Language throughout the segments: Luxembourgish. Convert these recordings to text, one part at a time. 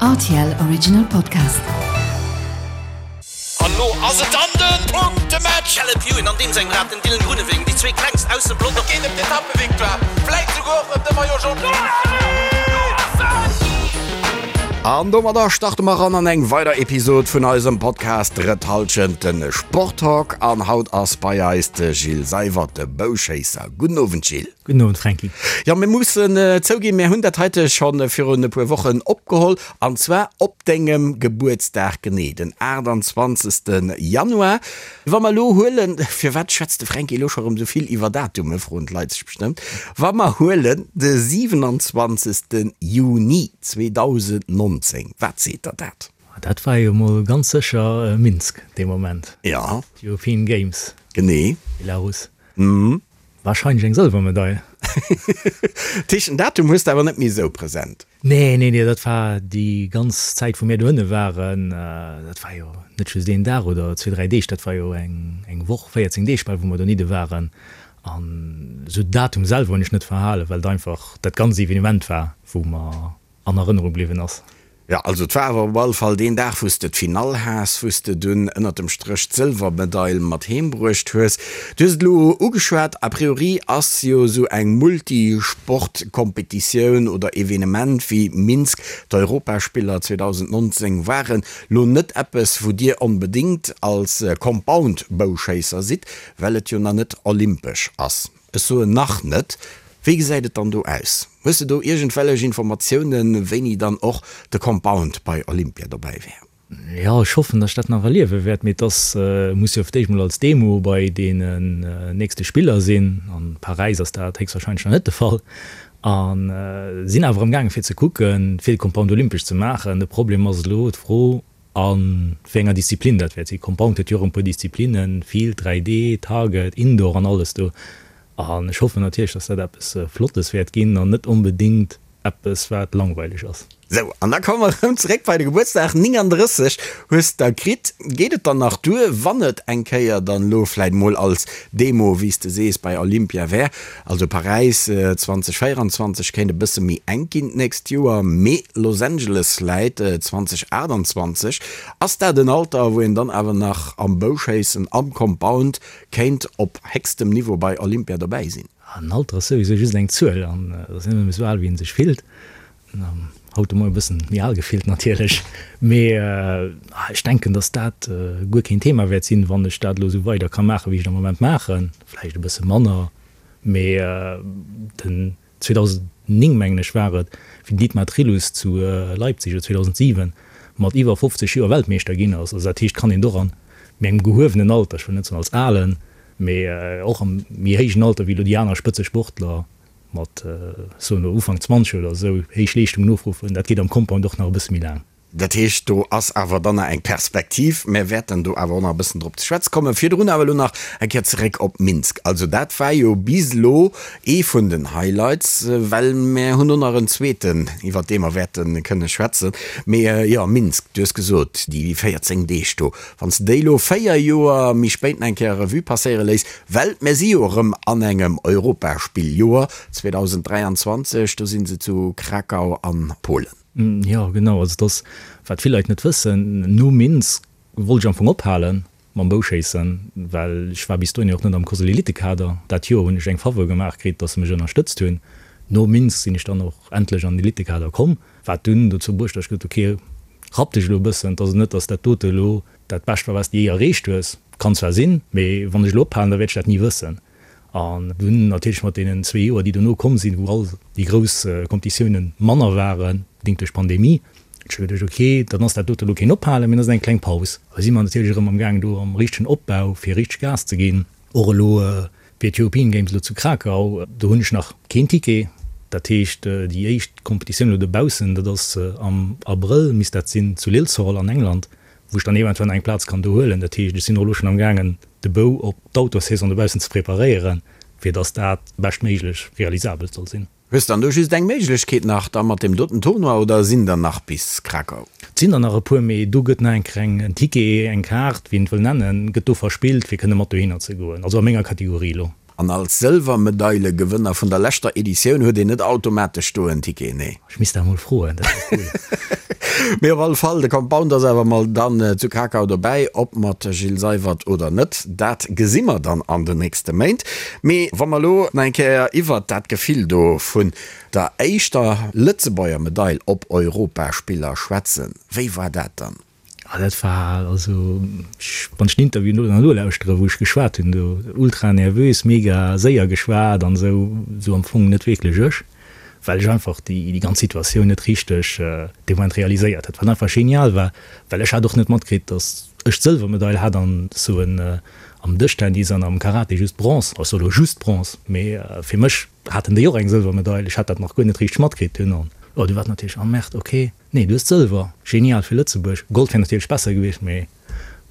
Rtl Original Podcast. An lo ass et dann den Punktematch! Caleb Ewan an deem sengem Rad den Dylan Groenewegen, déi zwee klengst aus dem Pelotong. Geet ëm d'Etappevictoire, vläit souguer och ëm de Maillot Jaune. An domadder starte mer ran an eng weider Episod vun eisem Podcast Drëtt Hallschent, den Sporttalk. An haut ass bei eis de Gilles Seywert, de Bouschéisser. Gudden Owend Gilles. Gudden Owend Franky. Jo, mir mussen zouginn, mir hunn dat heite scho virun e puer Wochen opgeholl, an zwar op dengem Gebuertsdag genee, den 28. Januar. Wa mer elo huelen, firwat schwätzt de Franky elo scho rëm esou vill iwwer Datume, froen d'Leit sech bestëmmt, wa mer huelen de 27. Juni 2019, wat seet der dat? Dat war jo mol ganz sécher Minsk dee Moment. Jo. D'European Games. Genee. Belarus. Wahrscheinlech eng Sëlwermedail. Tisch, den Datum hues de awer net méi esou present. Nee, nee, nee, dat war déi ganz Zäit wou mir dohinne waren. Dat war jo net just een Dag oder zwee, dräi Deeg, dat war jo eng eng Woch, 14 Deeg bal wou mer donidde waren. An esou Datum selwer hunn ech net verhalen, well et einfach dat ganz Evenement war wou mer an Erënnerung bliwwen ass. Jo, also et war awer op alle Fall deen Dag, wou s de d'Finall has, wou s de dunn ënnert dem Stréch d'Sëlwermedail mat heem bruecht hues. Du hues et elo ugeschwat, a priori ass jo esou eng Multisport-Kompetitioun oder Evenement wéi Minsk, d'Europaspiller 2019 waren, lo net eppes, wou Dir onbedéngt als Compound-Bouschéisser sidd, well et jo nach net olympesch ass. Ech soen nach net. Wéi gesäit et dann do aus? Hues de do iergendwellech Informatiounen, wéini dann och de Compound bei Olympia dobäi wär? Jo, ech hoffen, datt ech dat nach erliewe wäert, mee et ass, muss jo fir d'éischt mol als Demo bei deenen nächste Spiller sinn. An Paräis ass dat héchstwahrscheinlech nach net de Fall. A sinn awer amgaange fir ze kucken, fir de Compound olympesch ze maachen. De Problem ass elo d'Fro, A wéi enger Disziplin dat wäert sinn. Compound huet jo och e puer Disziplinnen, Field, 3D, Target, Indoor an alles do. An ech hoffen natierlech, dass dat eppes Flottes wäert ginn an net onbedéngt eppes, wat langweileg ass. Sou, an da komme mer erëm zeréck bei de Gebuertsdag. 39 hues der kritt. Geet et dann nach duer, wann et eng Kéier dann elo vläit mol als Demo, wéi s de sees, bei Olympia wär? Also Paräis 2024 kéint e bësse méi enk ginn d'nächst Joer, mee Los Angeles läit 2028. Ass dat en Alter, wou een dann awer nach am Bouschéissen am Compound kéint op héchstem Niveau bei Olympia dobäi sinn? En Alter ass souwisou just eng Zuel an et ass net ëmmer esou al, wéi ee sech fillt. Haut de Moien e bëssen méi al gefillt natierlech, mee ech denken, datt dat guer keen Thema wäert sinn, wann ech dat elo esou weider ka maachen, wéi ech et am Moment maachen. Vläicht e bësse manner, mee den 2009, mengen ech, war et, wéi den Dietmar Trillus zu Leipzig, oder 2007, mat iwwer 50 Joer Weltmeeschter ginn ass. Also dat heescht, kann een och an méi engem gehuewenen Alter, ech wëll net soen als alen, mee och am méi héijen Alter wéi elo déi aner Spëtzesportler, mat, soen elo Ufank 20 oder esou, héich Leeschtungen ofruffen, dat geet am Compound och nach e bësse méi laang. Dat heescht, do ass awer dann nach eng Perspektiv. Mär wäerten do awer och nach e bëssen drop ze schwätze kommen. Virdrun awer elo nach eng Kéier zeréck op Minsk. Also dat war jo bis elo ee vun den Highlights, well mär hunn och nach en zweeten, iwwert dee mer wäerte kënne schwätzen. Mee jo, Minsk, du hues gesot, déi 14 Deeg do, wann s de déi elo 4 Joer méi spéit nach eng Kéier Revue passéiere léiss, Well mir si jo erëm an engem Europaspilljoer, 2023, do si se zu Krakau an Polen. Jo, genau. Also et ass, wat vill Leit net wëssen, no Minsk wollt ech am Fong ophale mam Bouschéissen, well ech war bis dohinner och net am Kosel Elitekader. Dat Joer hunn ech eng Faveur gemaach kritt, datt se mech ënnerstëtzt hunn. No Minsk sinn ech dann och endlech an den Elitekader komm, wat dunn dozou bruecht, datt ech gesot hunn, ok, rapp dech elo e bëssen, et ass net, datt dat dote elo Dat Bescht war, wat s de jee erreecht hues. Kann zwar sinn, mee wann ech elo ophalen, da wäert ech dat ni wëssen. An dunn natierlech mat deenen zwee Joer, déi dono komm sinn, wou all déi grouss Competitiounen manner waren, bedéngt duerch d'Pandemie, hunn ech geduecht, ok, dann ass dat dote elo keen Ophalen, mee dann ass et eng kleng Paus. Da si mer natierlech erëm amgaangen do am richtegen Opbau, fir richteg Gas ze ginn. Och elo fir d'European Games elo zu Krakau, do hunn ech nach keen Ticket. Dat heescht, déi éischt Competitioun elo dobaussen, dat ass am Abrëll, misst dat sinn, zu Lilshall an England. wou ech dann eventuell nach eng Plaz kann do huelen. Dat heescht, ech sinn och elo schonn amgaangen, de Bou op d'Outdoor-Saison dobaussen ze preparéieren, fir dass dat beschtméiglech realisabel soll sinn. Hues dann do just eng Méiglechkeet nach da mat deem doten Tournoi oder sinn der nach bis Krakau? Et sinn der nach e puer, mee do gëtt nach eng kleng en Ticket, eng Kaart, wéi een et wëll nennen, gëtt do verspillt, fir kënne mat dohinner ze goen, also a menger Kategorie elo. An als Sëlwermedailegewënner vun der leschter Editioun huet een net automatesch do en Ticket, nee? Ech misst dat emol froen, dat wär cool. Mee op alle Fall, de Compound ass awer mol dann zu Krakau dobäi. Ob mat Gilles Seywert oder net, dat gesi mer dann an den nächste Méint. Mee wa mer elo nach eng Kéier iwwert dat Gefill do vun der éischter Lëtzebuerger Medail op Europaspiller schwätzen, wéi war dat dann? Ah, dat war, also ech, wann ech den Interview no nolauschteren, wou ech geschwat hunn do, ultra nervös, mega séier geschwat an esou, esou am Fong net wierklech ech, well ech einfach déi, déi ganz Situatioun net richteg dee Moment realiséiert hat, wat einfach genial war, well ech hat och net matkritt, datt ech d'Sëlwermedail hat an soen am Dëschtennis an am Karate just Bronze, ech soe lo just Bronze, mee fir mech haten déi och eng Sëlwermedail, ech hat dat nach guer net richteg matkritt dunn an jo, du war natierlech, ah merde, ok. Nee, du hues Sëlwer. Genial fir Lëtzebuerg. Gold wär natierlech besser gewiescht, mee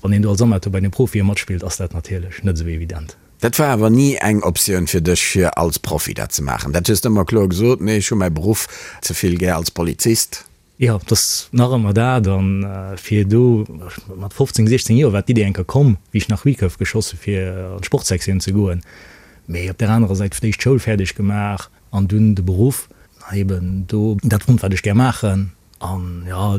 wann een do als Amateur bei den Profie matspillt, ass dat natierlech net esou evident. Dat war awer ni eng Optioun fir dech, fir als Profi dat ze maachen? Dat hues de ëmmer kloer gesot, Nee, ech hu mäi Beruff ze vill gär als Polizist. Jo, et ass nach ëmmer dat. A fir do, mat 15, 16 Joer war d'Idee eng Kéier komm, wéi ech nach Recurve geschoss hu fir an d'Sportsektioun ze goen. Mee op där anerer Säit d'éischt d'Schoul fäerdeg gemaach, An dunn de Beruff, eben do dat fonnt, wat ech gär maachen. An jo,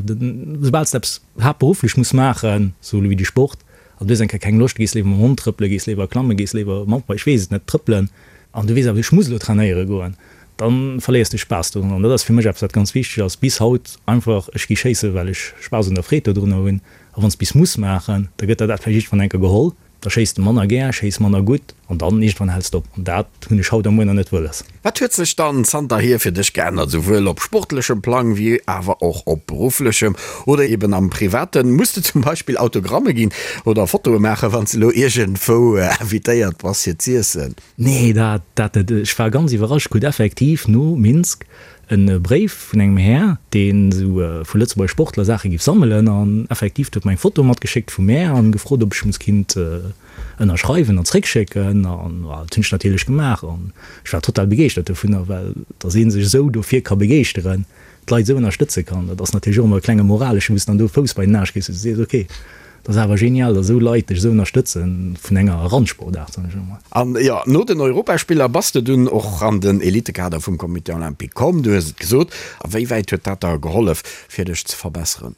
soubal s de eppes haaptberufflech muss maachen, sou elo wéi de Sport, an du hues eng Kéier keng Loscht, gees léiwer mam Hond trëppelen, gees léiwer klammen, gees léiwer Mountainbike, ech weess et net, trëppelen, an du weess awer, ech muss elo trainéiere goen, da verléiers de Spaass dorun. An dat ass fir mech eppes, wat ganz wichteg ass bis haut, einfach, ech gi schéissen, well ech Spaass un der Freed dodrunner hunn. A wann s bis muss maachen, da gëtt der dat vläicht iergendwann eng Kéier geholl. Da schéiss de manner gär, schéiss manner gutt an dann iergendwann häls de op. An dat hunn ech haut a muer nach net wëlles. Wat huet sech dann zanterhier fir dech geännert, souwuel op sportlechem Plang wéi awer och op berufflechem oder eben am Privaten? Muss de zum Beispill Autogramme ginn oder Fotoe maachen, wann s de elo iergendwou invitéiert bass fir z'iessen? Nee, dat dat net. Ech war ganz iwwerrascht, krut effektiv no Minsk en Bréif vun engem Här, deen esou vu Lëtzebuerger Sportler Saache giff sammelen an effektiv, huet mer eng Foto matgeschéckt vu mär an gefrot, ob ech muss kinnt ënnerschreiwen an zréckschécken an dat hunn ech natierlech gemaach an ech war total begeeschtert dovunner, well dass ee sech esou dofir ka begeeschteren, d'Leit esou ënnerstëtze kann, dat ass natierlech och ëmmer e klenge moraleschen, wou s de dann do Fouss bei den Aarsch kriss, wou s de sees, ok, Dat ass awer genial, datt esou Leit dech esou ënnerstëtzen vun enger Randsportaart, soen ech elo mol. An jo, no den Europaspiller bass de dunn och an den Elitekader vum Comité Olympique komm, du hues et gesot. A wéi wäit huet dat der gehollef, fir dech ze verbesseren?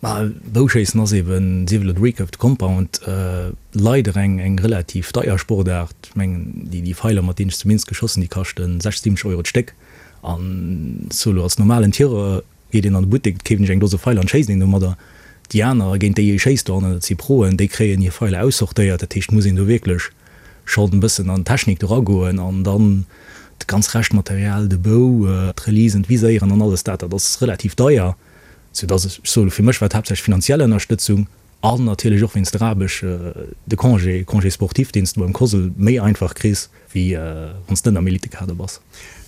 Ma Bouschéissen ass eben, sief elo de Recurve, de Compound, leider eng eng relativ deier Sportaart. Ech mengen, déi déi Feiler, mat deenen ech zu Minsk geschoss hunn, déi kaschten 60, 70 Euro d'Stéck. An solo als normalen Tireur Geet een an de Buttek, keeft een sech eng Dose Feiler an schéisst een domadder. Déi aner, géint déi ee schéisst dohannen, dat si Proen, déi kréien hir Feiler aussortéiert. Dat heescht, muss een do wierklech schonn e bëssen an d'Technik do ragoen an dann dat ganz Reschtmaterial, de Bou, d'Releasen, d'Viséieren an alles dat, dat ass relativ deier. Soudass ech soe fir mech war et haaptsächlech finanziell Ënnerstëtzung an natierlech och wéinst der Aarbecht de Congé, Congé sportif, deen s de beim COSL méi einfach kriss, wéi wann s de net am Elitekader bass.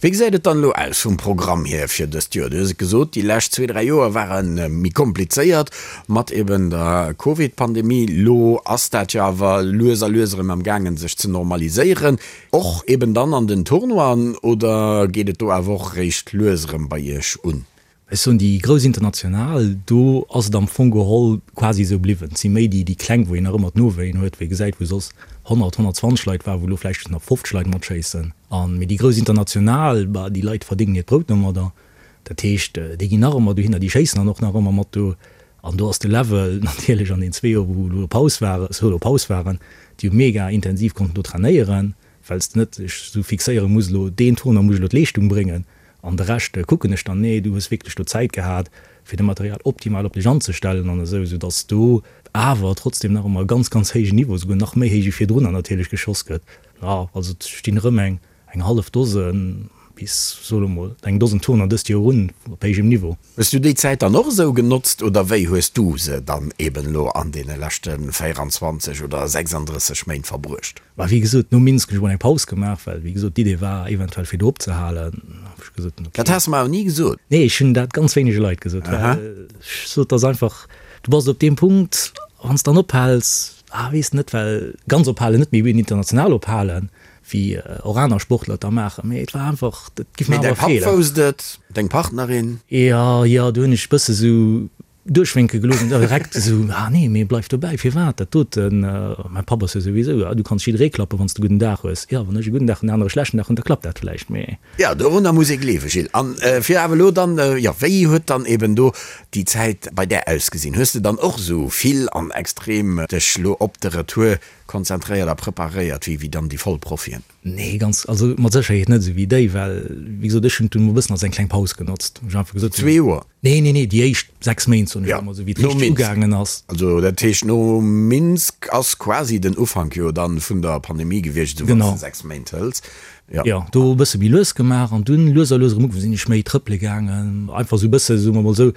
Wéi gesäit et dann elo aus vum Programm hier fir dëst Joer? Du hues et gesot, déi lescht zwee, dräi Joer ware méi komplizéiert mat eben der Covid-Pandemie. Elo ass dat jo awer lues a lues erëm am gaangen sech ze normaliséieren, och eben dann an den Tournoien, oder geet et do awer och eréischt lues erëm bei Iech un? Ech soen, déi grouss international, do ass et am Fong geholl quasi esou bliwwen. Et si méi déi, déi kleng, wou een nach ëmmer d'Nowéien huet, wou ee gesäit, wou soss 100, 120 Leit waren, wou elo vläicht just nach 50 Leit matschéissen. An, mee déi grouss international, bah, déi Leit verdéngen hiert Brout domadder. Dat heescht, déi ginn nach ëmmer dohinner, déi schéissen dann och nach ëmmer mat do. An do ass de Level natierlech an den zwee Joer, wou elo Paus war, solo Paus waren, déi hu mega intensiv konnten do trainéieren, well s de net dech esou fixéiere muss, elo deen Tournoi muss ech elo d'Leeschtung bréngen, An de Rescht kucken ech dann. Nee, du hues wierklech do Zäit gehat, fir de Material optimal op dech anzestellen an esou, esou dass do awer trotzdem nach ëmmer e ganz, ganz héijen Niveau, esouguer nach méi héich wéi virdrunner natierlech geschoss gëtt. Jo, also et stinn erëm eng, eng hallef Dose bis, soe lo mol, eng Dosen Turner dëst Joer un op héijem Niveau. Hues du déi Zäit dann och esou genotzt oder wéi hues du se dann eben elo an deene leschte 24 oder 36 Méint verbruecht? Mä wéi gesot, no Minsk hunn ech mol eng Paus gemaach, well wéi gesot d'Idee war eventuell fir do opzehalen. Hu ech gesot, ok. Dat has de mer awer ni gesot. Nee, ech hunn dat ganz wéinege Leit gesot, well ech sot, dass einfach, du bass op deem Punkt, wann s de dann ophäls, ah weess net, well ganz ophalen net, mee eben international ophalen, wéi och aner Sportler et da maachen, mee et war einfach, dat giff mer awer feelen. Mee däi Papp wousst et, deng Partnerin? Jo, jo, do hunn ech e bësse sou. Duerchwénke gelooss an direkt esou, ah nee, mee bleif dobäi, firwat dat doten? Mäi Papp ass jo souwisou, ah du kanns jidderee klappen, wann s de e gudden Dag hues. Jo, wann ech e gudden Dag hunn, den anere e schlechten Dag hunn, da klappt dat vläicht, mee. Jo, dorunner muss ee gleewen, Gilles. An fir awer elo dann, jo, wéi huet dann eben do déi Zäit bei där ausgesinn? Hues de dann och esou vill an extrem dech lo op de Retour konzentréiert a preparéiert wéi dann déi Vollprofien? Nee, ganz, also mat Sécherheet net esou wéi déi, well wéi gesot, ech hunn et dunn e bëssen als eng kleng Paus genotzt, wou ech einfach gesot hunn. Zwee Joer? Nee, nee, nee, déi éischt 6 Méint, soen ech ëmmer, esou wéi et richteg ugaangen ass. Also dat heescht, no Minsk ass quasi den Ufank jo dann vun der Pandemie gewiescht, esou wann s de 6 Méint hëls. Jo. Jo, do e bësse méi lues gemaach an dunn lues a lues erëm ugefaangen, sinn ech méi trëppele gaangen, einfach esou e bësse, soe mer mol esou,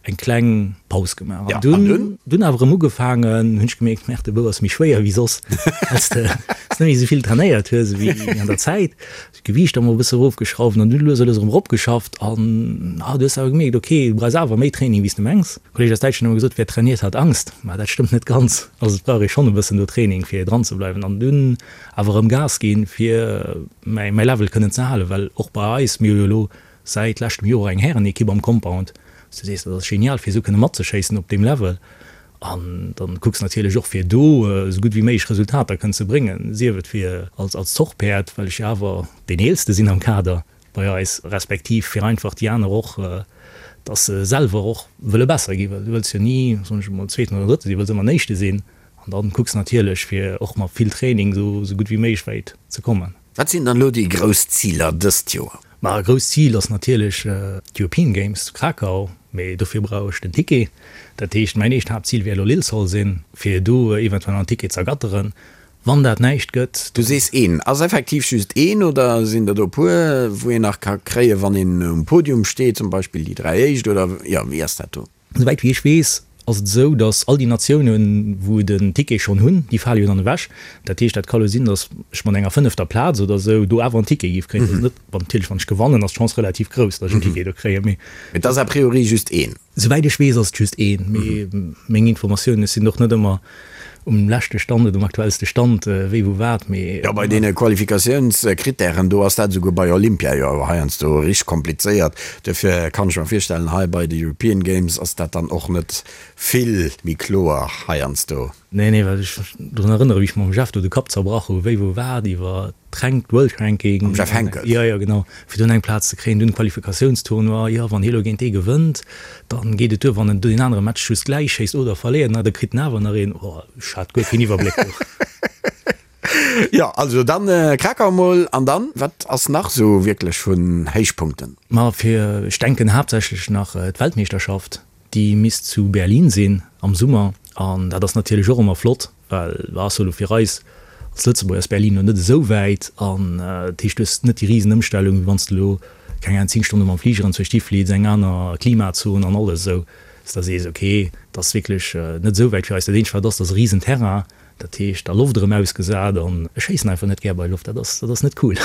eng kleng Paus gemaach. An dunn, dunn awer erëm ugefaangen, hunn ech gemierkt, Merde, de Bou ass méi schwéier wéi soss, well s de net méi esou vill trainéiert hues ewéi an der Zäit. D'Gewiicht emol e bësse erofgeschrauft an dunn lues a lues erëm eropgeschafft an ah, du hues awer gemierkt, ok, du brauchs awer méi Training wéi s de mengs. E Kolleeg aus Däitschland huet ëmmer gesot, wer trainiert hat Angst, ma dat stëmmt net ganz. Also et brauch ee schonn e bëssen do Training fir dran ze bleiwen an dunn awer erëm Gas ginn, fir mäi mäi Level kënnen ze halen, well och bei eis, mir hu jo elo säit leschtem Joer eng Härenekipp am Compound, wou s du sees, dat ass genial fir esou kënne matzeschéissen op deem Level. An dann kucks natierlech och fir do esou gutt wéi méiglech Resultater kënnen ze bréngen, sief et fir als als Zochpäerd, well ech jo awer deen eelste sinn am Kader bei eis, respektiv fir einfach déi aner och, dass se selwer och wëlle besser ginn, well du wëlls jo ni, soen ech emol, Zweeten oder Drëtte sinn, du wëlls ëmmer den Éischte sinn. An dann kucks natierlech fir och mat vill Training esou esou gutt wéi méiglech wäit ze kommen. Wat sinn dann elo déi grouss Ziler dëst Joer? Ma e grousst Zil ass natierlech d'European Games zu Krakau, mee dofir brauch ech den Ticket. Dat heescht, mäin éischt Haaptzil wäert elo Lilshall sinn, fir do eventuell en Ticket z'ergatteren. Wann dat näischt gëtt. Du sees een. Ass effektiv just een oder sinn der do e puer, wou een nach ka kréien, wann een um Podium steet, zum Beispill déi 3 éischt oder jo, wéi ass dat do? Souwäit wéi ech weess, ass et esou, datt all déi Natiounen, wou den Ticket schonn hunn, déi fale jo dann ewech. Dat heescht, dat ka lo sinn, datt ech mat enger fënnefter Plaz oder esou do awer en Ticket géif kréien. Dat ass net, wann natierlech wann ech gewannen, ass d'Chance relativ grouss, datt ech en Ticket do kréien, mee. Et ass a priori just een. Souwäit ech weess, ass et just een, mee meng Informatiounen, ech sinn och net ëmmer um leschte Stand oder um aktuellste Stand, wéi wou wat, mee. Jo, bei deene Qualifikatiounskrittären do ass dat esouguer bei Olympia jo heiansdo richteg komplizéiert. Duerfir kann ech mer virstellen, hei bei de European Games ass dat dann och net vill méi kloer heiansdo. Nee, nee, well ech mech drun erënnere wéi ech mam Jeff do de Kapp zerbrach hu wéi wou wat iwwer d'Rank, d'World Ranking. Mam Jeff Henckels? Jo, jo, genau, fir dunn eng Plaz ze kréien, dunn Qualifikatiounstournoi, jo, wann hie lo géint dee gewënnt, Dann geet et duer wann en deen anere Match just gläich schéisst oder verléiert, na da kritt en awer nach een. Oh, ech hat guer keen Iwwerbléck do. Jo, also dann Krakau mol an dann, wat ass nach sou wierklech vun Héichpunkten? Ma fir, ech denken haaptsächlech nach d'Weltmeeschterschaft, déi misst zu Berlin sinn am Summer an dat ass natierlech och ëmmer flott. Well ass jo elo fir eis als Lëtzebuerger ass Berlin elo net esou wäit an dat heescht du hues net déi risen Ëmstellung wéi wann s de elo keng Ahnung 10 Stonne mam Fliger anzwousch hi fliits, eng aner Klimazon an alles esou, dass de sees ok et ass wierklech net esou wäit fir eis. Dat eenzegt wat ass, dat ass e risen Terrain, dat heescht der Loft erëm ausgesat an ech schéissen einfach net gär bei Loft, dat ass dat ass net cool.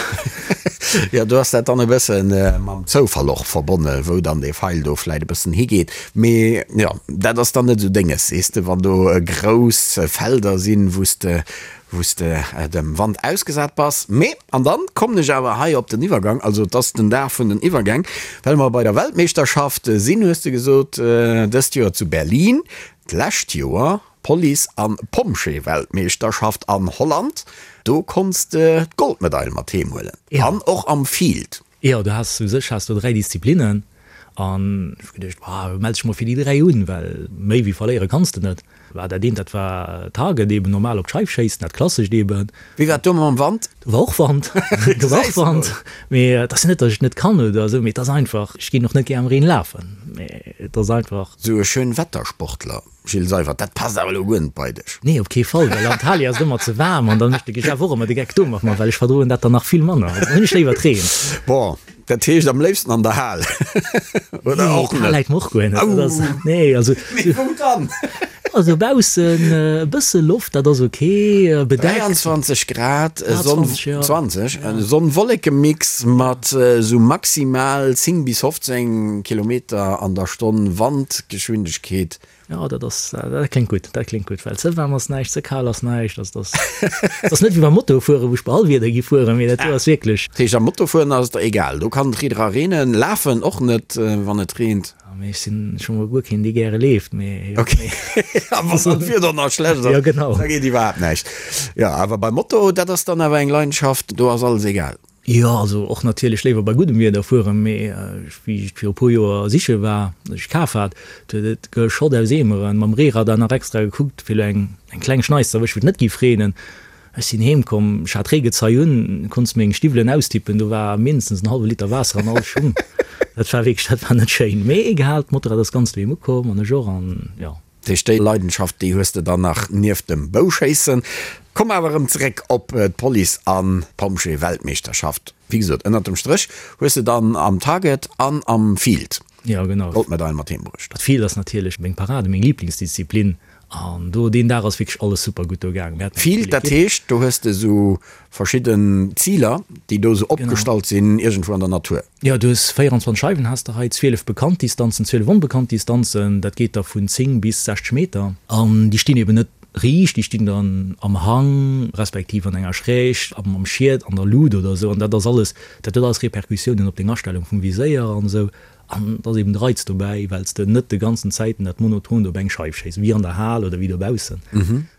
Jo, do ass dat dann e bësse mam Zoufall och verbonne wou dann dee Feil do vläit e bëssen higeet. Mee jo, dat ass dann net esou dénges, sees de, wann do grouss Felder sinn, wou s de, wou s de dem Wand ausgesat bass. Mee, an dann kommen ech awer hei op den Iwwergang, also et ass den Dag vun den Iwwergäng, well mer bei der Weltmeeschterschaft sinn, hues de gesot, dëst Joer zu Berlin, d'lescht Joer Police an Pompjeeweltmeeschterschaft an Holland, do konns de d'Goldmedail mat heem huelen an och am Field. Jo, du has u sech has du 3 Disziplinnen an ech hu geduecht, boah, mell dech mol fir déi 3 un, well méi wéi verléiere kanns de net. War dat eent, dat war Target eben, normal op d'Scheif schéissen, dat klassescht eben. Wéi war et do mam Wand? Do war och Wand, do war och Wand, mee et ass jo net, datt ech et net kann oder esou, mee et ass einfach, ech ginn och net gär am Reen lafen, mee et ass einfach. Sou e Schönwettersportler. Gilles Seywert, dat passt awer elo guer net bei dech. Nee, op kee Fall, well an Antalya ass et ëmmer ze waarm an dann mécht de Jeff och ëmmer de Geck do mat mer, well ech verdroen dat dann nach vill manner. Also dann hunn ech léiwer d'Reen. Bon, dat heescht am léifsten an der Hal, oder och net? Nee, d'Hal läit mer och guer net. Dat ass, nee, also. Mee wou dann? Also baussen e bësse Loft, dat ass ok, bedeckt. 23 Grad, Sonn, 20, Sonn-Wolleke-Mix mat esou maximal 10 bis 15 Kilometer an der Stonn Wandgeschwindegkeet. Jo, dat ass, dat kléngt gutt, dat kléngt gutt, well ze waarm ass näischt, ze kal ass näischt. Also dat ass, dat ass net wéi beim Motofueren, wou ech bei all Wieder gi fueren, mee dat do ass wierklech. Dat heescht, am Motofueren ass et der egal, do kann et riit era reenen, lafen och net, wann et reent. Mee ech sinn scho mol guer keen, dee gäre leeft, mee jo. Ok, a wann dann d'Wieder nach schlecht ass, Jo, genau. da geet iwwerhaapt näischt. Jo, awer beim Moto, dat ass dann awer eng Leidenschaft, do ass alles egal. Jo, also och natierlech léiwer bei guddem Wieder fueren, mee wéi ech et viru puer Joer siche war, dat ech kaf hat, do huet et geschott aus Eemeren, mam Reeradar nach extra gekuckt, fir elo eng eng kleng Schneis ze erwëschen, wou et net géif reenen. Ech sinn heem komm, ech hat Reegezei un, konns meng Stiwwelen austippen, do war mindestens en hallwe Liter Waasser an all Schung. Dat war wierklech, dat war net schéin. Mee egal, d'Motorrad ass ganz doheem ukomm an ech och an jo. Dat heescht, déi Leidenschaft, déi hues de dann nach nieft dem Bouschéissen. Komm awer erëm zeréck op d'Police an d'Pompjee-Weltmeeschterschaft. Wéi gesot, ënnert dem Stréch hues de dann am Target an am Field Jo, genau. d'Goldmedail mat heem bruecht. D'Field ass natierlech meng Parade, meng Liblingsdisziplin. An do deen Dag ass wierklech alles super gutt do gaangen. Mir haten eng Field, cool dat Equipe. heescht, do hues de sou verschidden Ziler, déi do sou opgestallt sinn, iergendwou an der Natur. Jo, du hues 24 Scheiwen has de hei, 12 bekannt Distanzen, 12 onbekannt Distanzen. Dat geet da vun 10 bis 60 Meter. An déi stinn eben net riicht, déi stinn dann am Hang, respektiv an enger Schräg, am Schiet, an der Lut oder sou. An dat ass alles, dat huet alles Repercussiounen op deng Astellung vum Viséier an esou. An et ass eben de Reiz dobäi, well s de net de ganzen Zäiten dat monotont op eng Scheif schéiss, wéi an der Hal oder wéi dobaussen.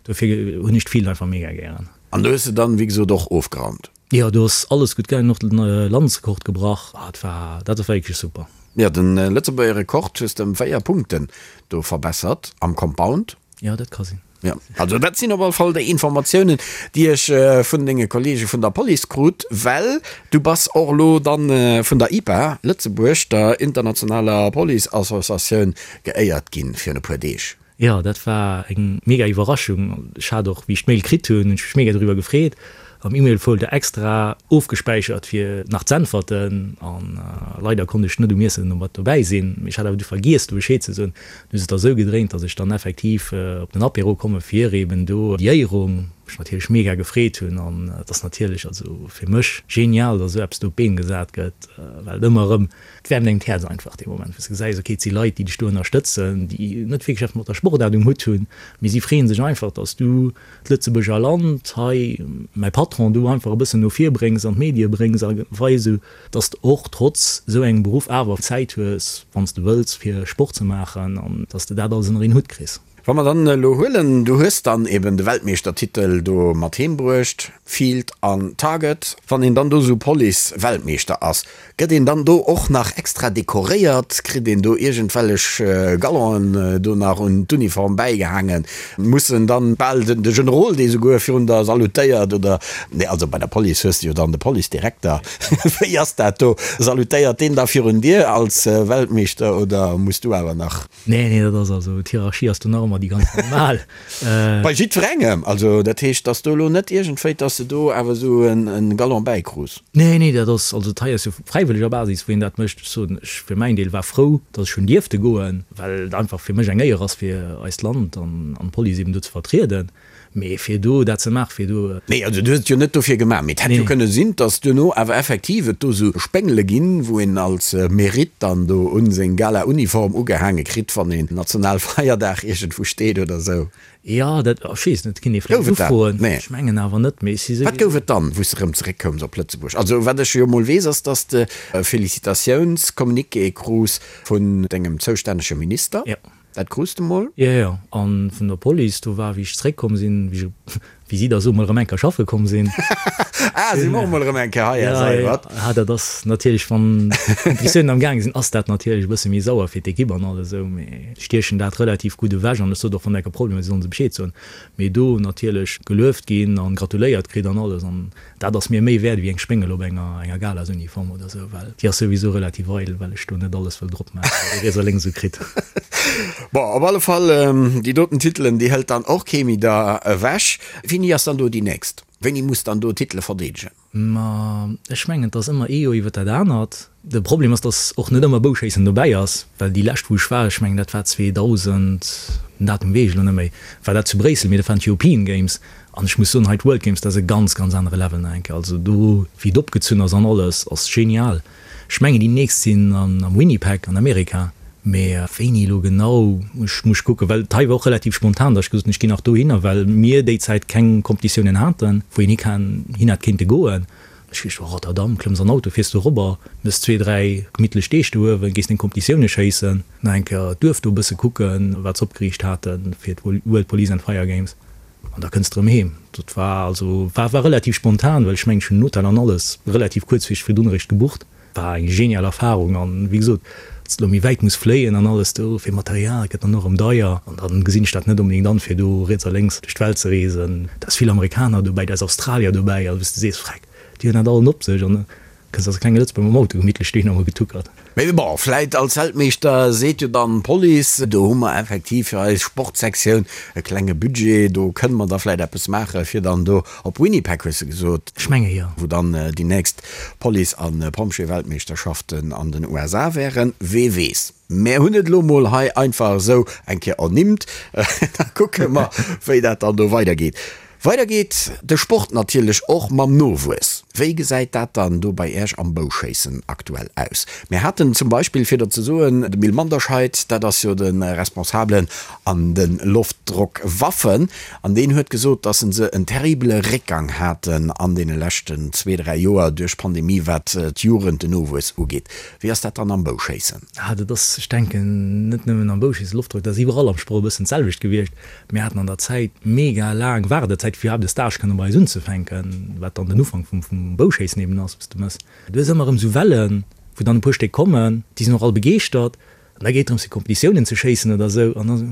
Dofir hunn ech d'Field einfach mega gären. An do hues de dann, wéi gesot, och ofgeraumt? Jo, do ass alles gutt gaangen, och den Landesrekord gebrach. Ah, et war, dat war wierklech super. Jo, den Lëtzebuerger Rekord hues de ëm 4 Punkten do verbessert am Compound. Jo, dat ka sinn. Jo, also dat sinn op alle Fall déi Informatiounen, déi ech vun denge Kollege vun der Police krut, well du bass och elo dann vun der IPA Lëtzebuerg, der internationaler Police-Associatioun, geéiert ginn virun e puer Deeg. Jo, dat war eng mega Iwwerraschung. Ech hat och, wéi ech d'Mail kritt hunn, hunn ech mech mega doriwwer gefreet. Am E-Mail-Folder extra ofgespäichert fir nach z'äntwerten an leider konnt ech net um Iessen mat dobäi sinn, mee ech hat awer du vergiess do Bescheed ze soen. Du hues et da sou gedréint, dass ech dann effektiv op den Apéro komme fir eben do déi Éierung, mech natierlech mega gefreet hunn an et ass natierlech also fir mech genial, dass esou eppes do op d'Been gesat gëtt, well et ëmmer erëm, et wäermt engem d'Häerz einfach dee Moment, wou s de gesäis, ok et si Leit, déi dech do ënnerstëtzen, déi net wierklech eppes mat der Sportaart um Hutt hunn, mee si freeën sech einfach, dass du d'Lëtzebuerger Land hei, mäi Patron, du einfach e bëssen no vir bréngs, an d'Medie bréngs a weis, esou dass de och trotz esou engem Beruff awer Zäit hues, wann s de wëlls, fir Sport ze maachen an dass de dat alles ënner een Hutt kriss. Wa mer dann elo huelen, du hues dann eben de Weltmeeschtertitel do mat heem bruecht, Field an Target, wann een dann do esou Police-Weltmeeschter ass, Gëtt een dann do och nach extra dekoréiert? Kritt een do iergendwellech Gallonen do nach un d'Uniform bäigehaangen? Muss en dann bal de Generol, dee souguer virun der salutéiert oder, nee, also bei der Police hues de jo dann de Policedirekter, wéi ass dat do? Salutéiert deen da virun dir als Weltmeeschter oder muss du awer nach? Nee, nee, dat ass also, d'Hierarchie ass do nach ëmmer déi ganz normal. Bei jiddwerengem? Also dat heescht, dass do elo net iergendwéi, dass de do awer esou e Galon bäikrus? Nee, nee, dat ass, also dat hei ass jo fräiwëlleger Basis, wou een dat mécht. Ech soen, ech fir mäin Deel war frou, dass ech hunn dierfte goen, well et einfach fir mech eng Éier ass, fir eist Land an d'Police eben do ze vertrieden. Mee fir do dat ze maachen, fir do. Nee, also du hues et jo net dofir gemaach, mee et hätt jo kënne sinn, dass duerno awer effektiv et do sou Spéngele ginn, wou een als Mérite dann do un seng Gala-Uniform ugehaange kritt, wann een Nationalfeierdag iergendwou steet oder sou. Jo, dat, ech weess net, kinnt ee vläicht Gouf et dat? ufroen. Nee. Ech mengen awer net, mee ech si Wat souwisou. gouf et dann, wou s de erëm zeréckkoums op Lëtzebuerg? Also wat ech jo mol weess, ass, dass de e Félicitatiounscommuniqué krus vun dengem zoustännege Minister. Jo. Dat krus de mol? Jo, jo. An vun der Police, do war, wéi ech zréckkomm sinn, wéi ech, wéi si da soe mol erëm eng Kéier schaffe komm sinn. Ah, si mer och mol erëm eng Kéier hei, Här Seibert. Ja, dat ass natierlech, wann d'Kompetitiounen am gaange sinn, ass dat natierlech e bësse méi sauer fir d'Ekipp an alles esou, mee stiechen dat relativ gutt ewech. An ech sot och, wann enke Problemer sinn, sollen se Bescheed soen. Mee do natierlech gelueft ginn an gratuléiert kritt an alles. An Dat ass mir méi wäert ewéi eng Spéngel op enger enger Galasuniform oder sou, well déi ass souwisou relativ eidel, well ech do net alles wëll drop maachen, wat ee riets a lénks esou kritt. Bon, op alle Fall, déi doten Titelen, déi hëlt dann och kee méi der ewech. Wéini ass dann do déi nächst? Wéini muss dann do Titele verdeedegen? Ma ech mengen, et ass ëmmer ee Joer iwwer dat anert. De Problem ass, dass och net ëmmer Bouschéissen dobäi ass, well déi lescht wou ech war, ech mengen dat war 2000, den Datum weess ech elo net méi, war dat zu Bréissel, mee dat waren d'European Games an ech muss soen, hei d'World Games, dat ass e ganz, ganz anere Level nach eng Kéier. Also do wéi et opgezunn ass an alles, ass genial. Ech mengen déi nächst sinn am Winnipeg an Amerika, mee wéini elo genau, ech muss kucken, well et hei war och relativ spontan, dass ech gesot hunn, ech ginn nach dohinner, well mir déi Zäit keng Competitiounen haten, wou een hi kann, hin hätt kéinte goen. Ech weess, Rotterdam, klëmms an Auto, fiers do robber, mëss zwee, dräi gemittlech Deeg do uewen, gees deng Kompetitioune schéissen, nach eng Kéier d'Duerf do e bësse kucken, wat se opgeriicht haten fir d'World Police and Fire Games, an da kënns de erëm heem. Dat war also, war, war relativ spontan, well ech mengen, ech hunn den Hotel an alles relativ kuerzfristeg virdrun eréischt gebucht. War eng genial Erfahrung an wéi gesot, dass de lo méi wäit muss fléien an alles do fir Material gëtt dann och erëm deier an dann gesinn ech dat net onbedéngt an fir do riets a lénks duerch d'Welt ze reesen. Da ass vill Amerikaner dobäi, da ass Australier dobäi, also wou s de sees, freck, déi hunn dat allen op sech an da kënns als klenge Lëtzebuerger mam Auto gemittlech dohinner emol getuckert. Mee bon, vläit als Weltmeeschter seet jo dann d'Police, do hu mer effektiv fir eis Sportsektioun e klenge Budget, do kënne mer da vläit eppes maache fir dann do op Winnipeg, hues de gesot? Ech menge jo. Wou dann déi nächst Police a Pompjeeweltmeeschterschaften an den USA wären, wee weess. Mär hunn et elo mol hei einfach esou eng Kéier ernimmt, da kucke mer, wéi dat dann do weidergeet. Weider geet de Sport natierlech och mam Nowuess. Wéi gesäit dat dann do bei Iech am Bouschéissen aktuell aus? Mir haten zum Beispill, fir der ze soen, de Mil Manderscheid, dat ass jo de Responsabelen an de Loftdrockwaffen, An deen huet gesot, dass se en terribele Réckgang haten an deene leschten zwee, dräi Joer duerch d'Pandemie, wat d'Jugend, den Nowuess ugeet. Wéi ass dat dann am Bouschéissen? Ah, dat ass, ech denken, net nëmmen am Bouschéissen, Loftdrock, dat ass iwwerall am Sport e bëssen d'selwecht gewiescht. Mir haten an der Zäit mega laang Waardezäit, fir iwwerhaapt e Stage kënne bei eis unzefänken, wat dann den Ufank vum Bouschéissen eben ass, wou s de mëss. Du hues ëmmer erëm esou Wellen, wou dann e puer Stéck kommen, déi sinn och all begeeschtert, An da geet drëms fir Kompetitiounen ze schéissen oder esou an da sou,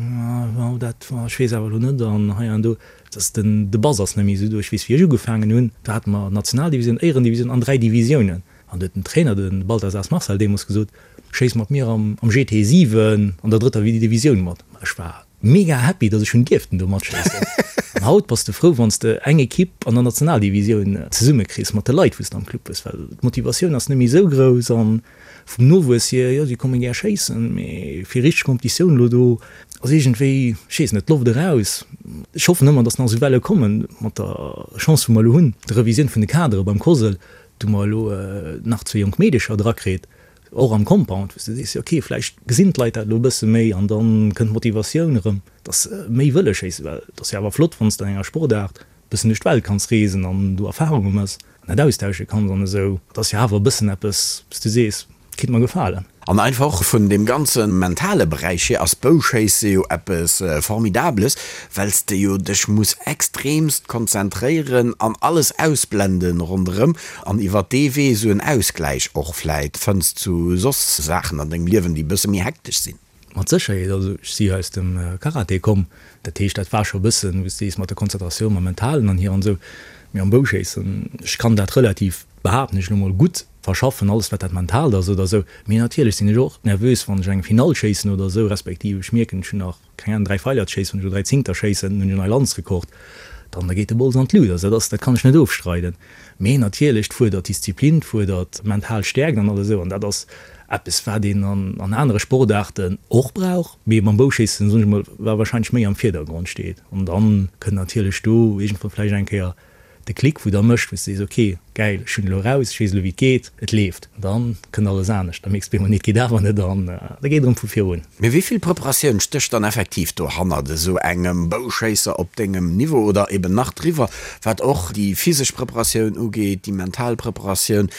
oh dat, oh ech weess awer elo net an hei an do. Et ass den, de Bass ass net méi esou do. Ech weess wéi ech ugefaangen hunn, do hate mer Nationaldivisioun, Éierendivisioun an 3 Divisiounen. An do huet den Trainer, de Balthasars Marcel deemools gesot, schéiss mat mir am am GT 7 an der drëtter Divisioun mat. Ma ech war mega happy, datt ech hunn dierften do matschéissen. An haut bass de frou wann s de eng Ekipp an der Nationaldivisioun zesummekriss mat de Leit wou s de am Club hues, well d'Motivatioun ass net méi esou grouss an Vum Nowuess hier, jo, si komme gär schéissen, mee fir richteg Kompetitioun elo do ass iergendwéi, ech weess net, d'Loft eraus. Ech hoffen ëmmer, datt nach esou Welle kommen. Mat der Chance, wou mer elo hunn, der Revisioun vun de Kadere beim COSL, do mer elo nach zwee jonk Meedecher drakritt, och am Compound, wou s de sees, jo okay, vläicht gesinn d'Leit dat elo e bësse méi an da kënnt d'Motivatioun erëm, datt se méi wëlle schéissen. Well et ass jo awer flott, wann s de an enger Sportaart bëssen duerch d'Welt kanns reesen an do Erfahrunge mëss an dat austausche kanns an esou, dat ass jo awer e bëssen eppes, wou s du sees, kéint mer gefalen. An einfach och vun deem ganze mentale Beräich hier ass Bouschéisse jo eppes Formidables, well s de jo dech muss extremst konzentréieren an alles ausblenden ronderëm an iwwert dee Wee esou en Ausgläich och vläit fënns zu soss Saachen an dengem Liewen, déi e bësse méi hektesch sinn. Mat Sécherheet, also ech si jo aus dem Karate komm, dat heescht dat war scho e bëssen, wou s de sees, mat der Konzentratioun, mam Mentalen an hier an esou, mee am Bouschéissen, ech kann dat relativ, behaapten ech elo mol, gutt verschaffen, alles wat dat Mentaalt ass oder esou, mee natierlech sinn ech och nervös, wann ech eng Finall schéissen oder esou, respektiv ech mierken, ech hunn nach, keng Ahnung, 3 Feiler ze schéissen, wann ech elo 3 Zéngter schéissen, hunn ech en neie Landesrekord, dann da geet de Bols an d'Lut, also dat ass, dat kann ech net ofstreiden. Mee natierlech, 't fuerdert Disziplin, 't fuerdert mental Stäerkt an alles esou, an dat ass eppes, wat een an anere Sportaarten och brauch, mee beim Bouschéissen, soen ech mol, wat wahrscheinlech méi am Virdergrond steet. An dann kënnt natierlech do iergendwann vläicht eng Kéier de Klick, wou da mécht, wou s de sees, ok, gäil, ech hunn elo eraus, ech weess elo wéi et geet, et leeft. An dann kënnt alles anescht, da mierks de op eemol, nee, et geet awer net an da geet et erëm vu vir un. Mee wéi vill Preparatioun stécht dann effektiv dohannert esou engem Bouschéisser op dengem Niveau oder eben nach driwwer, wat och déi physesch Preparatioun ugeet, déi mental Preparatioun?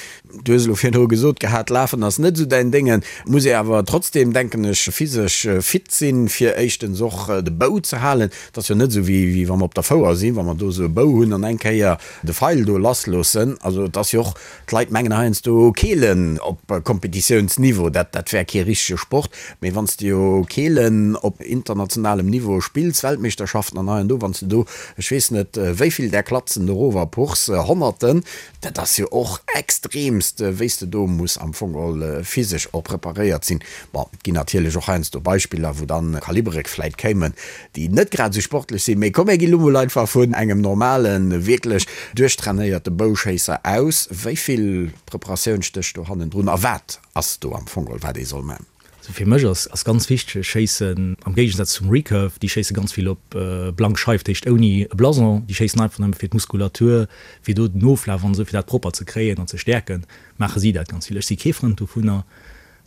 Du hues elo virdru gesot gehat, Lafen ass net esou däin Déngen. Muss ee awer trotzdem, denken ech, physesch fit sinn, fir éischtens och de Bou ze halen. Et ass jo net esou, wéi wa mer op der Fouer sinn, wa mer do esou e Bou hunn an eng Kéier de Feil do lassloossen. Also et ass jo och, d'Leit mengen heiansdo, Keelen op Kompetitiounsniveau, dat dat wär kee richtege Sport. Mee wann s de jo Keelen op internationalem Niveau spills, Weltmeeschterschaften an hei an do, wann s de do, ech weess net wéi vill där Klatzen erover puchs, Honnerten, Dat ass jo och extremst, wéi s de do muss am Fong geholl physesch och preparéiert sinn. Bon, et ginn natierlech och heiansdo Beispiller, wou dann Kalibere vläit kéimen, déi net grad esou sportlech sinn. Mee komm, mir gi lo mol einfach vun engem normalen, wierklech duerchtrainéierte Bouschéisser aus. Wéi vill Preparatioun stécht do hannendrun a wat ass do am Fong geholl, wat ee soll man? Also fir mech ass ass ganz wichteg, ech schéissen am Géigesaz zum Recurve, déi schéisse ganz vill op blank Scheif, dat heescht ouni e Blason, déi schéissen einfach nëmme fir d'Muskulatur, fir do den Oflaf an esou, fir dat propper ze kréien an ze stäerken, maache si dat ganz vill. Ech si kee Frënd dovunner,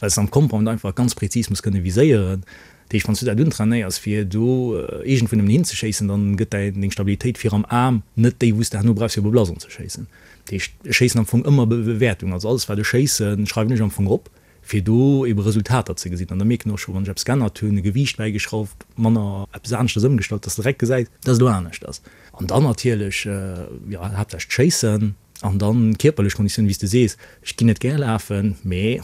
well s de am Compound einfach ganz prezis muss kënne viséieren. Dat heescht, wann s du dat untrainéiers, fir do iergendwou nëmmen hinzeschéissen, dann gëtt däi, deng Stabilitéit vir am Aarm net déi, wou s de herno brauchs, fir op e Blason ze schéissen. Dat heescht, ech schéissen am Fong ëmmer Bewäertung. Also alles, wat ech schéissen, schreiwen ech am Fong op, fir do ebe Resultater ze gesinn. An da mierken och scho, wann ech eppes geännert hunn, e Gewiicht bäigeschrauft, manner eppes aneschters ëmgestallt, dass de direkt gesäis, dass et elo anescht ass. An dann natierlech, jo, haaptsächlech d'Schéissen. An dann kierperlech Konditioun, wéi s de sees, ech ginn net gär lafen, mee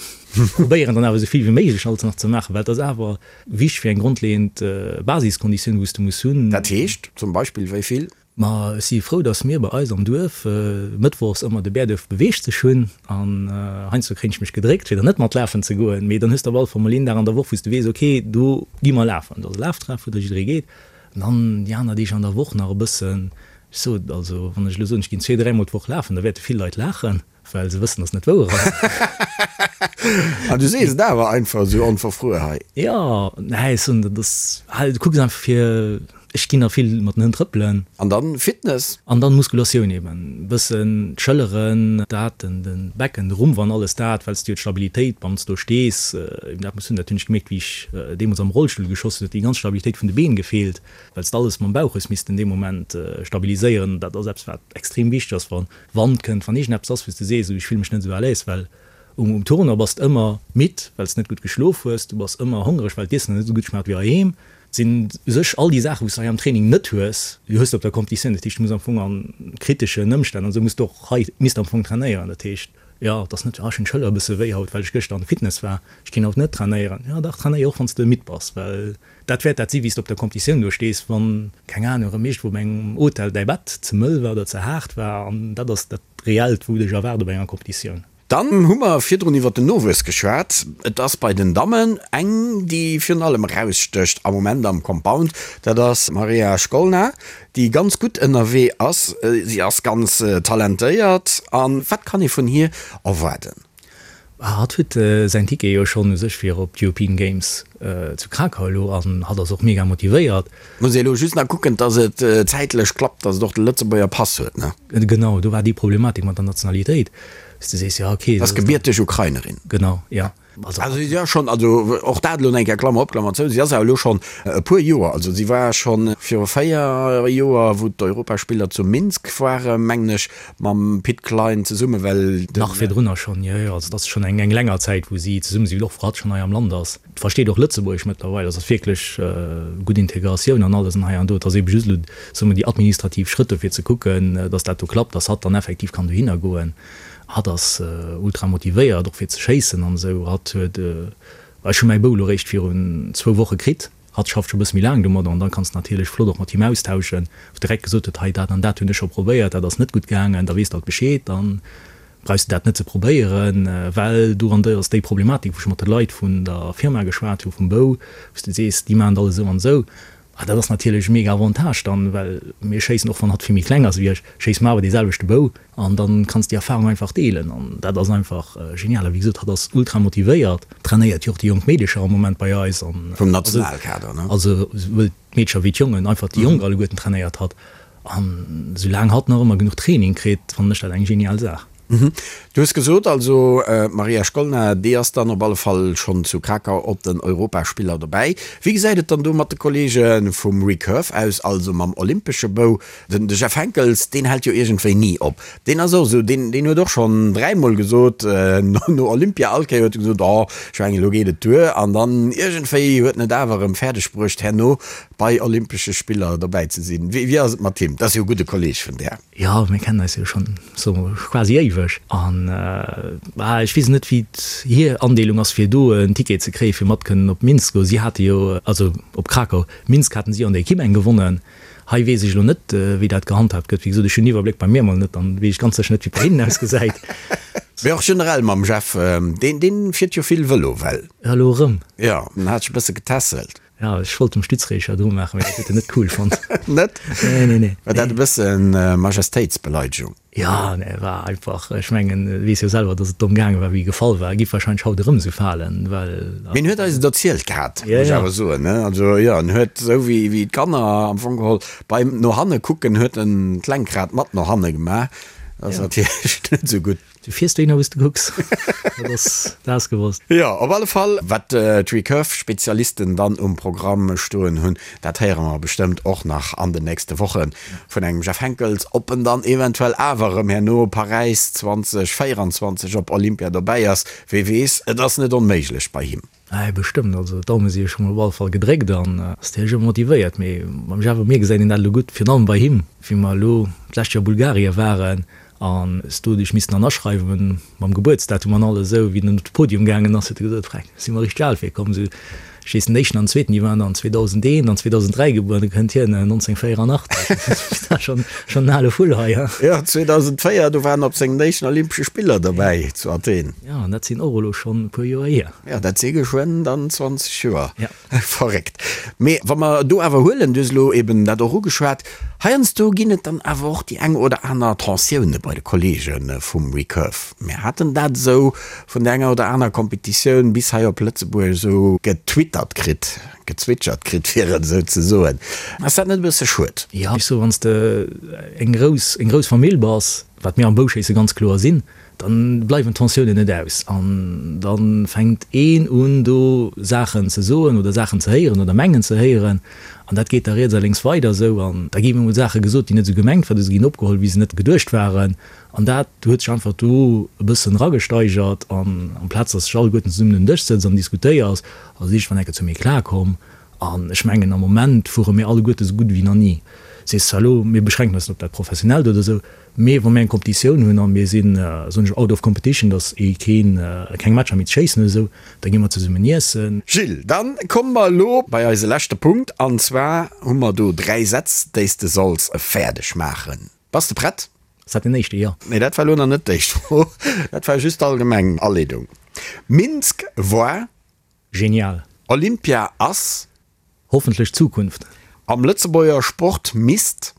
probéieren dann awer esou vill wéi méiglech alles nach ze maachen, well et ass awer wichteg fir eng grondleeënd Basiskonditioun, wou s de muss hunn. Dat heescht zum Beispill wéi vill? Ma ech si frou, dass mir bei eis am Duerf mëttwochs ëmmer de Bäerduerf beweegt sech hunn an heiansdo kréien ech mech gedréckt, fir dann net mat lafen ze goen, mee dann hues de op alle Fall mol een Dag an der Woch, wou s de weess, ok, do gi mer lafen, do ass e Laftreff, wou da jidderee geet. An dann déi aner Deeg an der Woch nach e bëssen, ech sot, also wann ech elo soen, ech ginn zwee, dräimol d'Woch lafen, da wäerte vill Leit laachen, well se wëssen, dass et net wouer ass. An du sees et awer einfach esou onverfruer hei. Jo, nee, ech soen, dat ass, du kucks einfach fir, ech ginn nach vill mat den Hënn trëppelen. An dann Fitness? An dann Muskulatioun eben, e bëssen d'Schëlleren, dat, den, den Becken, de Rumpf an alles dat, well s du jo d'Stabilitéit, wann s do stees, eben dat muss hunn. Dat hunn ech gemierkt, wéi ech deemools am Rollstull geschoss hunn, huet déi ganz Stabilitéit vun de Been gefeelt, well s de alles mam Bauch hues missten dee Moment stabiliséieren. Dat ass eppes, wat extrem wichteg ass, wa Wand kënnt, wann iergendeppes ass, wou s de sees, ech fille mech net esou à l'aise, well um Tournoi bass de ëmmer midd, well s de net gutt geschlof hues, du bass ëmmer hongereg, well d'Iessen net esou gutt schmaacht wéi heiheem. Et sinn u sech all déi Saachen, wou s de hei am Training net hues, déi hues de op der Competitioun. Dat heescht, du muss am Fong a kriteschen Ëmstänn an esou muss de och hei misst am Fong trainéieren. Dat heescht, jo, et ass net, ah ech hunn d'Schëller e bësse wéi haut, well ech gëschter an de Fitness war, ech ginn haut net trainéieren. Jo dach, trainéier och wann s de midd bass, well Dat wäert dat si wéi s de op der Competitioun do stees, wann, keng Ahnung, erëm iergendwou op engem Hotel däi Bett ze mëll war oder ze haart war. An dat ass dat Reellt, wou dech erwaart op enger Competitioun. Dann hu mer virdrun iwwer den Nowuess geschwat. Et ass bei den Dammen eng, déi virun allem erausstécht am Moment am Compound, dat ass d'Maria Shkolna, déi ganz gutt ënnerwee ass. Si ass ganz talentéiert. A wat kann ee vun hir erwaarden? Hatt huet säin Ticket jo schonn u sech fir op d'European Games zu Krakau elo an hatt ass och mega motivéiert. Muss ee elo just nach kucken, dass et zäitlech klappt, dass et och de Lëtzebuerger Pass huet, ne? Genau, do war déi Problematik mat der Nationalitéit, dass du sees, jo okay. Ass gebierteg Ukrainerin. Genau, jo. Also si ass schonn, also och dat elo eng Kéier, Klammer op, Klammer zou, si ass awer elo schonn e puer Joer, also si war schonn viru 4 Joer, wou d'Europaspiller zu Minsk waren, mengen ech, Mam Pit Klein zesumme well den. Nach virdrunner schonn, jo jo, also et ass schonn eng eng länger Zäit wou si zesumme sinn, och wou hatt schonn hei am Land ass. Versteet och Lëtzebuergesch mëttlerweil, also ass wierklech gutt Integratioun an alles an hei an do. Et ass ebe just elo, soe mer, déi administrativ Schrëtt dofir ze kucken, datt dat do klappt, datt hatt dann effektiv kann dohinner goen. Hatt ass ultra motivéiert och fir ze schéissen an esou. Hatt huet, ech hu mäi Bou elo réischt virun zwou Woche kritt. Hatt schafft scho bësse méi laang domadder an dann kanns de natierlech flott och mat him austauschen, wou direkt gesot huet, hei dat an dat hunn ech scho probéiert, dat ass net gutt gaangen, da weess de alt Bescheed, dann brauchs de dat net ze probéieren, well do an do ass déi Problematik, wou ech mat de Leit vun der Firma geschwat hu vum Bou, wou s de sees, déi maachen et alles esou an esou. A dat ass natierlech e mega Avantage dann, well mir schéissen, och wann hatt vill méi kleng ass wéi ech, schéisse mer awer dee selwechte Bou. An dann kanns déi Erfahrung einfach deelen an dat ass einfach genial. A wéi gesot, hatt ass ultra motivéiert, trainéiert jo och déi jonk Meedecher am Moment bei eis an. Vum Nationalkader, ne? Also souwuel d'Meedecher wéi d'Jongen, einfach déi Jonk alleguerten trainéiert hatt. An soulaang hatt nach ëmmer genuch Training kritt, fannen ech dat eng genial Saach. Du hues gesot, also d'Maria Shkolna, déi ass dann op alle Fall schonn zu Krakau op den Europaspiller dobäi. Wéi gesäit et dann do mat de Kolleege vum Recurve aus, also mam olympesche Bou? Den de Jeff Henckels, deen hält jo iergendwéi ni op. Deen ass och esou, deen, deen huet och schonn dräimol gesot, no Olympia, all Kéier huet e gesot, oh, ech mengen, elo geet et duer. An dann iergendwéi huet en et awer erëm fäerdeg bruecht, herno bei Olympesche Spiller dobäi ze sinn. Wéi, wéi ass et mat him? Dat ass jo e gudde Kolleeg vun där. Jo, mir kennen eis jo schonn sou quasi éiweg. An, bah, ech weess net, wéi hir Andeelung ass, fir do en Ticket ze kréien, fir mat kënnen op Minsk goen. Si hate jo, also op Krakau, Minsk haten si jo an der Equipe eng gewonnen. Hei weess ech elo net, wéi dat gehandhaabt gëtt. Wéi gesot, ech hunn den Iwwerbléck bei mir emol net, dann weess ech ganz sécher net, wéi et bei hinnen ausgesäit. Mee och generell mam Jeff, deen, deen fiert jo vill Vëlo, well. Ja, elo erëm. Jo, en hat sech e bësse getässelt. Ja, ech wollt em Stützräger dru maachen, mee dat huet en net cool fonnt. Net? Nee, nee, nee. War dat e bësse Majestéitsbeleidegung? Jo, nee, war einfach, ech mengen, e weess jo selwer, datt et domm gaange war, wéi e gefall war. E giff wahrscheinlech haut erëm esou falen, well. Mee en huet eis et erzielt gehat, muss ech awer soen, ne? Also, jo, en huet esou wéi, wéi d'Kanner am Fong geholl beim no hanne kucken, huet en d'Lenkrad mat no hanne gemaach. Dat ass natierlech net esou gutt. Du fiers dohinner wou s de kucks, dat ass, dat ass gewosst. Jo, op alle Fall, wat d'Recurve-Spezialisten dann um Programm stoen hunn, dat héiere mer bestëmmt och nach an den nächste Woche vun engem Jeff Henckels, ob en dann eventuell awer erëm herno Paräis 2024 op Olympia dobäi ass, wee weess, et ass net onméiglech bei him. Ei, bestëmmt, also d'Daume si jo scho mol op alle Fall gedréckt an ass natierlech ëmmer motivéiert, mee beim Jeff a mir gesäit een dat elo gutt, virun allem bei him, wéi mer elo d'lescht Joer Bulgarie waren an s do dech missten an aschreiwen mam Gebuertsdatum an alles esou, wéi den op de Podium gaangen ass, huet e gesot, Freck, si mer richteg al virkomm, esou ech weess den éischten an den zweeten, déi waren dann 2001 an 2003 gebuer, an du kënnt hien 1984, dat ass schonn schonn en ale Vull hei, ha. Jo, 2004, do war en op sengen éischten Olympesche Spiller dobäi zu Athen. Jo, an dat sinn och elo schonn e puer Joer hier. Jo, dat si geschwënn dann 20 Joer. Ja. Verréckt. Mee wa mer do awer huelen, du hues elo eben dat och ugeschwat, heiansdo ginn et dann awer och déi eng oder aner Tensioune bei de Kolleege vum Recurve. Mir haten dat esou vun der enger oder aner Competitioun bis hei op Lëtzebuerg esou getwittert kritt, gezwitschert kritt, fir et esou ze soen. Ass dat net e bësse schued? Jo, ech soe wann s de eng grouss, eng grouss Famill bass, wat mir am Bouschéisse ganz kloer sinn, Dann bleiwen d'Tensiounen net aus an da fänkt een un do Saachen ze soen oder Saachen ze héieren oder mengen ze héieren an dat geet da riets a lénks weider esou an da gi emol Saache gesot, déi net esou gemengt waren oder se ginn opgeholl wéi se net geduecht waren an dat huet sech einfach do e bëssen eragesteigert an amplaz datt sech alleguerten zesummen un den Dësch sëtzt an diskutéiers, ass et iergendwann enke zu méi klar komm an ech mengen am Moment fuere mir alleguerte esou gutt ewéi nach ni. Sees zwar elo, mir beschränken eis net op dat Professionellt oder esou, Mee wa mir eng Competitioun hunn a mir sinn, soen ech, out of competition, datt ee keen, keng Matcher méi ze schéissen huet esou, da gi mer zesummen iessen. Gilles, dann komme mer elo bei eise leschte Punkt an zwar hu mer do 3 Sätz, déi s de solls fäerdeg maachen. Bass de prett? Ass dat den éischte? Jo. Nee, dat war elo nach net d'éischt Fro, dat war just d'allgemeng Aleedung. Minsk war. Genial. Olympia ass. Hoffentlech d'Zukunft. Am Lëtzebuerger Sport misst.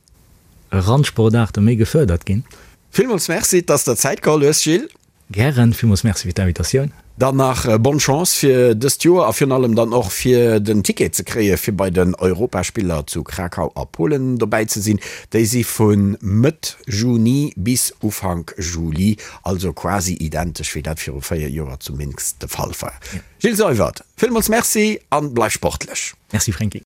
Randsportaarte méi gefërdert ginn. Villmools Merci, dass der Zäit geholl hues, Gilles. Gären. Villmools Merci fir d'Invitatioun. Dann nach bonne Chance fir dëst Joer a virun allem dann och fir den Ticket ze kréie fir bei den Europaspiller zu Krakau a Polen dobäi ze sinn. Déi si vu Mëtt Juni bis Ufank Juli, also quasi identesch wéi dat viru 4 Joer zu Minsk de Fall war. Gilles Seywert, villmools Merci an bleif sportlech. Merci Franky.